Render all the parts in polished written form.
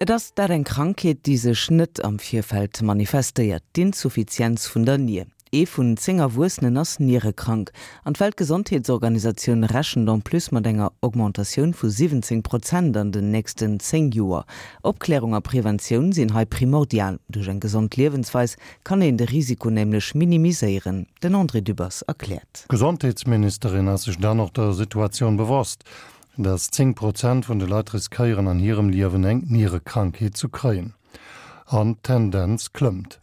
Et ass dat eng Krankheet, déi sech net am Virfeld manifestéiert, d'Insuffizienz vun der Nier. Ee vun 10 Erwuessenen ass nierekrank. An d'Weltgesondheetsorganisatioun rechent en plus mat enger Augmentatioun vu 17 Prozent an den nächsten 10 Joer. Opklärung a Preventioun sinn hei primordial. Duerch eng gesond Liewensweis kann een de Risiko nämlech minimiséieren. Den André Dübbers erkläert. D'Gesondheetsministerin ass sech dann och der Situatioun bewosst. Dass 10 Prozent vun de Leit riskéieren an hirem Liewen eng Nierekrankheet zu kréien. An d'Tendenz klëmmt.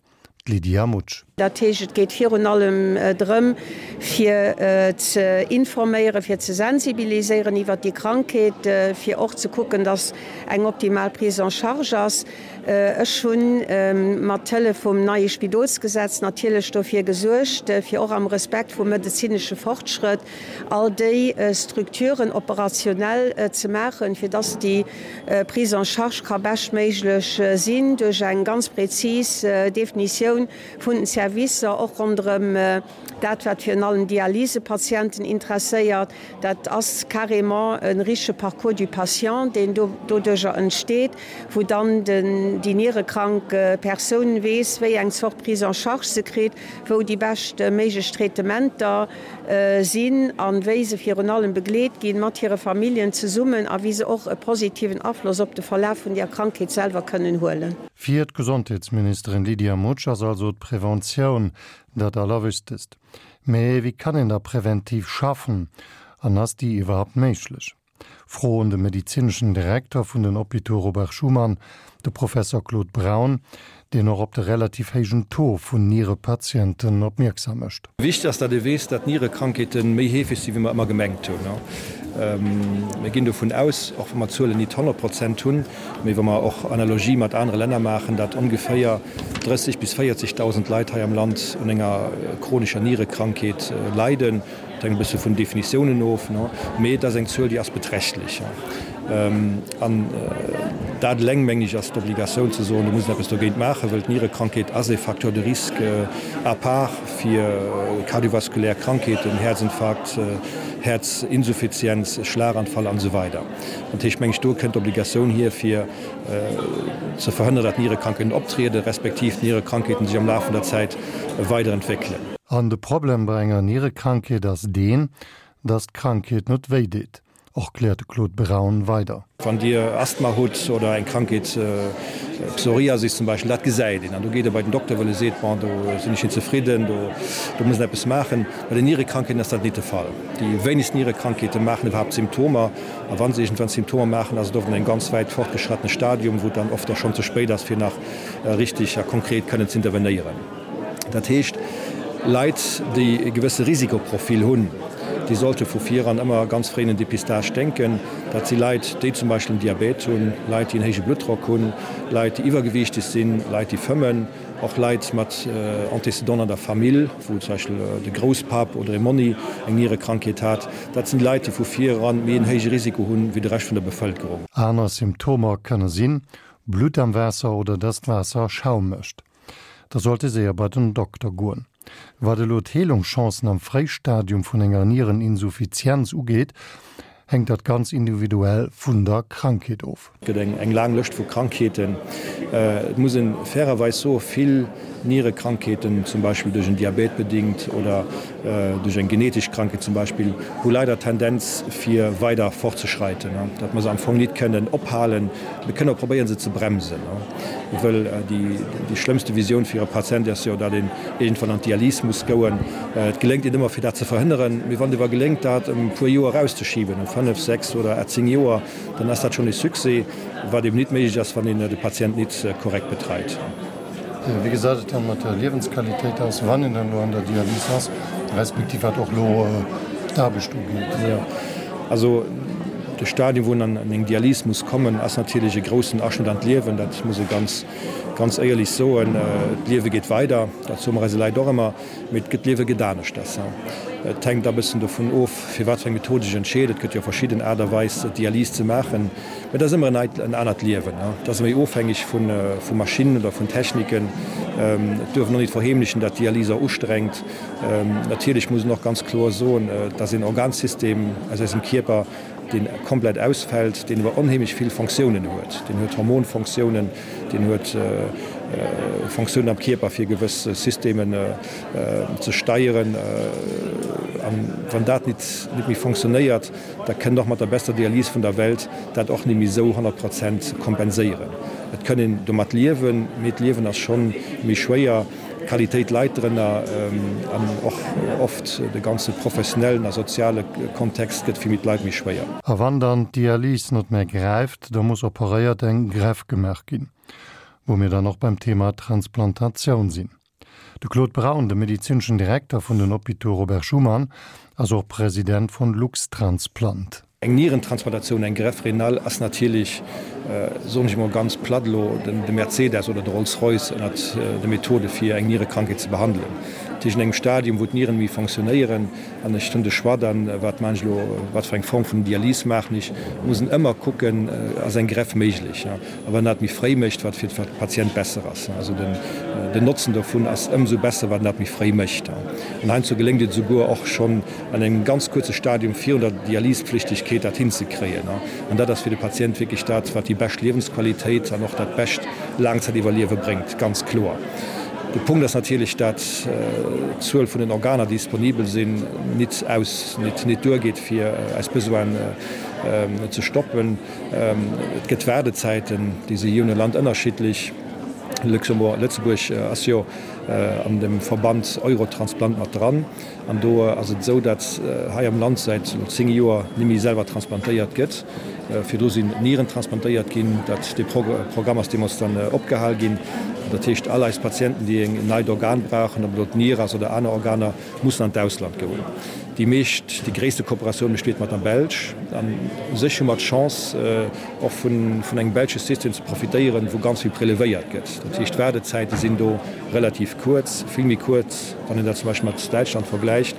D'Lydia Mutsch. Dat heescht, et geet virun allem drëm, fir ze informéieren, fir ze sensibiliséieren iwwert déi Krankheet, fir och ze kucken, dass eng optimal Prise en charge ass. Ech hu mat Hëllef vum neie Spidolsgesetz natierlech dofir gesuergt, fir och am Respekt vum medezinesche Fortschrëtt, all déi Structuren operationell ze maachen, fir dass déi Prise en charge ka beschtméiglech sinn duerch eng ganz prezis Definitioun vun den Servicer, och ronderëm dat, wat virun allem Dialysepatienten interesséiert. Dat ass carrément e richtege Parcours du patient, deen doduerjer entsteet, wou dann déi nierekrank Persoun weess, wéi eng Zort Prise en charge se kritt, wou déi bescht méiglech Traitementer sinn a wéi se virun allem begleet ginn, mat hire Familljen zesummen, a wéi se och e positiven Afloss op de Verlaf vun der Krankheet selwer kënnen huelen. Fir d'Gesondheetsministerin Lydia Mutsch ass also d'Preventioun dat Allerwichtegst. Mee wéi kann een da präventiv schaffen an ass déi iwwerhaupt méiglech? Fro un de medezineschen Direkter vun den Hôpitaux Robert Schuman, de Professor Claude Braun, deen och op de relativ héijen Taux vun Nierepatienten opmierksam mécht. Wichteg ass, datt ee weess, datt Nierekrankheete méi heefeg sinn, wéi mer ëmmer gemengt hunn. Mir ginn dovun aus, och wa mer d'Zuelen nit 100 Prozent hunn, mee wa mer och Analogie mat anere Länner maachen, datt ongeféier 30 bis 40.000 Leit hei am Land un enger chronescher Nierekrankheet leiden. Et hänkt e bësse vun Definitiounen of, mee et ass eng Zuel, déi ass beträchtlech. An dat eleng, meng ech, ass d'Obligatioun ze soen, do muss een eppes dogéint maachen, well d'Nierekrankheet ass e Facteur de risque à part fir kardiovaskulär Krankheeten, Häerzinfarkt, Häerzinsuffizienz, Schlaganfall an esou weider. Dat heescht, meng ech, do kënnt d'Obligatioun hier, fir ze verhënneren, datt Nierekrankheeten optrieden, respektiv d'Nierekrankheeten sech am Laf vun der Zäit weiderentwéckelen. An de Problem bei enger Nierekrankheet ass deen, dass d'Krankheet net wéi deet, erkläert de Claude Braun weider. Wann Dir Asthma hutt oder eng Krankheet, Psoriasis zum Beispill, dat gesäit een an do geet e bei den Dokter, well e seet, bon do sinn ech net zefridden, do do muss een eppes maachen. Bei den Nierekrankheeten ass dat nit de Fall. Déi wéinegst Nierekrankheete maachen iwwerhaapt Symptomer a wa se iergendwann Symptomer maachen, ass et oft an engem ganz wäit fortgeschrattene Stadium, wou et dann oft och schonn ze spéit ass, fir nach richtig a konkret kënnen z'intervenéieren. Dat heescht, Leit, déi e gewësse Risikoprofil hunn, déi sollte vu viran ëmmer ganz fréi un en Dépistage denken. Dat si Leit, déi zum Beispill en Diabète hunn, Leit, déi en héije Bluttdrock hunn, Leit, déi iwwergewiichteg sinn, Leit, déi fëmmen, och Leit mat Antécédenten an der Famill, wou zum Beispill de Grousspapp oder e Monni eng Nierekrankheet hat. Dat sinn Leit, déi vu viran méi en héije Risiko hunn, wéi de Rescht vun der Bevëlkerung. Aner Symptomer kënne sinn, Blutt am Waasser oder dass d'Waasser Schaum mécht. Da sollt ee séier bei den Dokter goen. Wat elo d'Heelungschancen am Fréistadium vun enger Niereninsuffizienz ugeet, hänkt dat ganz individuell vun der Krankheet of. Et gëtt eng laang Lëscht vu Krankheeten. Et muss e fairerweis soen, vill Nierekrankheeten, zum Beispill duerch en Diabète bedingt oder duerch eng genetesch Krankheet zum Beispill, hu leider d'Tendenz fir weider fortzeschreiten, datt mer se am Fong nit kënnen ophalen. Mir kënnen och probéieren se ze bremsen, wëll déi schlëmmste Visioun fir e Patient ass jo, datt een iergendwann an d'Dialys muss goen. Et geléngt net ëmmer fir dat ze verhënneren, mee wann et ewer geléngt dat ëm e puer Joer erauszeschiben, ëm 5, 6 oder 10 Joer, dann ass dat schonn e Succès, wat eben nit méiglech ass, wann een de Patient nit korrekt betreit. Wéi gesäit et dann mat der Liewensqualitéit aus, wann een dann elo an der Dialys ass, respektiv wat och elo d'Aarbecht ugeet? Jo, also de Stadium, wou een an eng Dialys muss kommen, ass natierlech e groussen Aschnëtt an d'Liewen. Dat muss ee ganz, ganz éierlech soen. D'Liewe geet weider, dat soe mer eise Leit och ëmmer, mee et gëtt, d'Liewe gëtt aneschters. Et hänkt a bëssen dovun of, fir wat fir eng Method ee sech entscheet. Et gëtt jo verschidden Aart a Weis, Dialys ze maachen. Mä et ass ëmmer en anert Liewen. Et ass méi ofhängeg vu Maschinnen oder vun Techniken. Et duerf een och nit verheemlechen, dat d'Dialys och ustrengt. Natierlech muss een och ganz kloer soen, et ass een Organsystem aus eisem Kierper. deen komplett ausfält, deen awer onheemlech vill Fonctiounen huet. Deen huet Hormonfonctiounen, deen huet Fonctiounen am Kierper fir gewëss Systemen ze steieren. An wann dat nit méi fonctionnéiert, da kënnt och mat der bester Dialys vun der Welt dat och net méi esou 100 Prozent kompenséieren. Et kënn een domat liewen, mee d'Liewen ass schonn méi schwéier, d'Qualitéit leit drënner an och oft de ganze professionellen a soziale Kontext gëtt fir méi d'Leit méi schwéier. A wann dann d'Dialys net méi gräift, da muss operéiert, eng Greffe gemaach ginn. Wou mir dann och beim Thema Transplantatioun sinn. De Claude Braun, de medezineschen Direkter vun den Hôpitaux Robert Schuman, ass och President vun Luxtransplant. Eng Nierentransplantatioun, eng Greffe rénale ass natierlech, soen ech emol ganz platt elo, de Mercedes oder de Rolls-Royce ënnert de Methode fir eng Nierekrankheet ze behandelen. Dat heescht, an engem Stadium wou d'Nieren méi fonctionnéieren an ech hunn de Choix dann, wat maachen ech elo, wat fir eng Form vun Dialys maachen ech, muss en ëmmer kucken, ass eng Greffe méiglech. A wann dat méi fréi mécht, wat fir de Patient besser ass. Also den Notzen dovun ass ëmsou besser, wat en dat méi fréi mécht. An heiansdo geléngt et esouguer och schonn an engem ganz kuerze Stadium virun der Dialyspflichtigkeet dat hinzekréien. An dat ass fir de Patient wierklech dat, wat déi bescht Liewensqualitéit an och dat bescht Laangzäitiwwerliewe bréngt, ganz kloer. De Punkt ass natierlech, dat d'Zuel vun den Organer, déi disponibel sinn, nit aus, nit duergeet, fir eis Besoinen ze stoppen. Et gëtt Waardezäiten, déi si jee no Land ënnerschiddlech. Luxembourg, Lëtzebuerg ass jo an dem Verband Eurotransplant mat dran. An do ass et esou, datt hei am Land säit elo 10 Joer net méi selwer transplantéiert gëtt. Virdru sinn Nieren transplantéiert ginn. Dat, dee Programm ass deemools dann opgehal ginn. Dat heescht, all eis Patienten, déi en neit Organ brauchen, ob et elo d'Nier ass oder aner Organer, mussen an d'Ausland goen. Déi meescht, déi gréisste Kooperatioun besteet mat der Belsch. An u sech hu mer d'Chance, och vun engem belsche System ze profitéieren, wou ganz vill prelevéiert gëtt. Dat heescht, d'Waardezäite sinn do relativ kuerz, vill méi kuerz, wann een dat zum Beispill mat Däitschland vergläicht.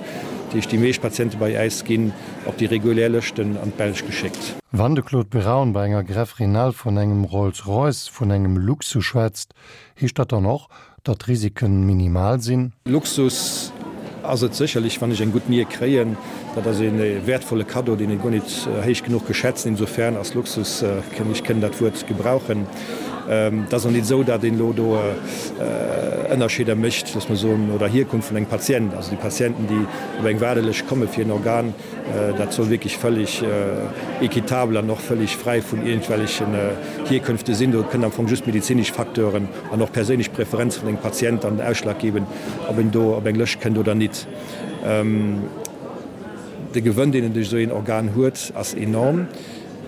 Dat heescht, déi meescht Patiente bei äis ginn op déi regulär Lëschten an d'Belsch geschéckt. Wann de Claude Braun bei enger Greffe rénale vun engem Rolls-Royce, vun engem Luxus schwätzt, heescht dat dann och, Datt d'Risiken minimal sinn? Luxus ass et sécherlech, wann ech eng gutt Nier kréien. Dat ass ee wäertvolle Kaddo, deen ee guer nit héich genuch ke schätzen. Insofern ass Luxus, ech kënn dat Wuert gebrauchen. Et ass och nit esou, datt een elo do Ënnerscheeder mécht, loosse mer soen, no der Hierkunft vun engem Patient. Also déi Patienten, déi op eng Waardelëscht komme fir en Organ, Dat soll wierklech völlig équitabel an och völlig fräi vun iergendwellechen Hierkünfte sinn. Do kënnen am Fong just medezinesch Facteuren an och perséinlech Preferenze vun engem Patient dann den Ausschlag geben, ob en do op eng Lëscht kënnt oder nit. De Gewënn, deen en duerch esou een Organ huet, ass enorm.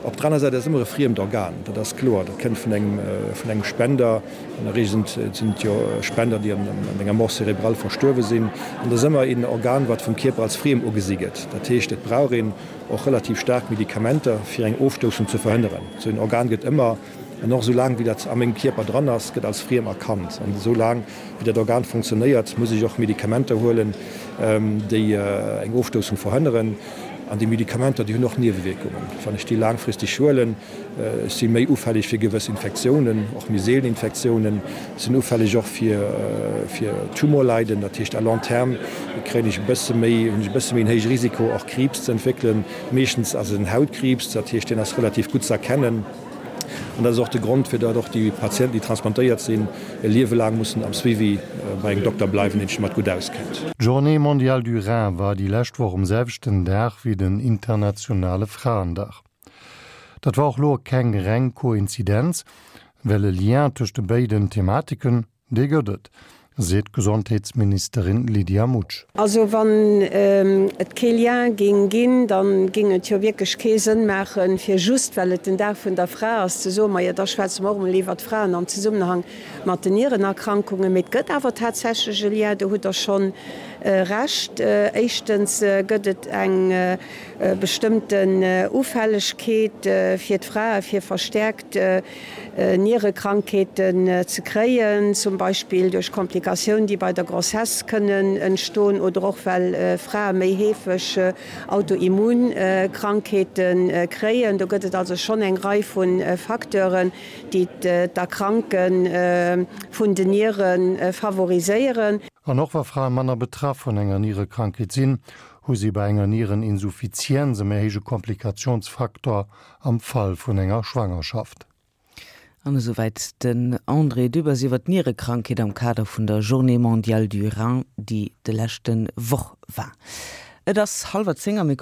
Op der aner Säit ass et ëmmer e friemt Organ, dat ass kloer. Dat kënnt vun engem, vun engem Spender. An der Reegel sinn et jo Spender, déi an enger Mort cérébrale verstuerwe sinn. An dat ass ëmmer een Organ, wat vum Kierper als friem ugesi gëtt. Dat heescht, et brauch een och relativ staark Medikamenter, fir eng Ofstoussung ze verhënneren. Esou een Organ gëtt ëmmer, an och esou laang wéi dat a mengem Kierper dran ass, gëtt als friem erkannt. An esou laang wéi dat Organ funktionéiert, muss ech och Medikamenter huelen, déi eng Ofstoussung verhënneren. An déi Medikamenter, déi hunn och Niewewierkungen. Wann ech déi laangfristeg huelen, ech si méi ufälleg fir gewëss Infektiounen, och méi seelen Infektiounen. Ech sinn ufälleg och fir fir Tumorleiden. Dat heescht à long terme kréien ech e bësse méi, hunn ech e bësse méi en héije Risiko och Kriibs ze entwéckelen. Meeschtens ass et en Hautkriibs, dat heescht deen ass relativ gutt ze erkennen. An dat ass och de Grond, fir datt och déi Patienten, déi transplantéiert sinn, e Liewe laang mussen am Suivi bei engem Dokter bleiwen, deen sech domat gutt auskennt. D'Journée mondiale du rein war déi lescht Woch um selwechten Dag wéi den internationale Fraendag. Dat war och lo keng reng Koinzidenz, well e Lien tëscht de béiden Thematiken, dee gëtt et, seet d'Gesondheetsministerin Lydia Mutsch. Also wann et kee Lien géing ginn, da géing et jo wierklech kee Sënn maachen, fir just well et den Dag vun der Fra ass, ze soen, majo da schwätze mer och emol iwwert d'Fraen am Zesummenhang mat den Nierenerkrankungen. Mee et gëtt awer tatsächlech e Lien, do hutt Der schonn Recht. Éischtens gëtt et eng bestëmmten Ufällegkeet fir d'Frae fir verstäerkt Nierekrankheeten ze kréien, zum Beispill duerch Komplikatioun, déi bei der Grossesse kënnen entstoen oder och well Frae méi heefeg Autoimmunkrankheete kréien. Do gëtt et also schonn eng Rei vu Facteuren, déi d'Erkranke vun den Niere favoriséieren. An och wa Frae manner betraff vun enger Nierekrankheet sinn, hu si bei enger Niereninsuffizienz e méi héije Komplikationsfaktor am Fall vun enger Schwangerschaft. An esouwäit den André Dübbers iwwer d'Nierekrankheet am Kader vun der Journée mondiale du rein, déi de leschte Woch war. Et ass hallwer 10 a mir.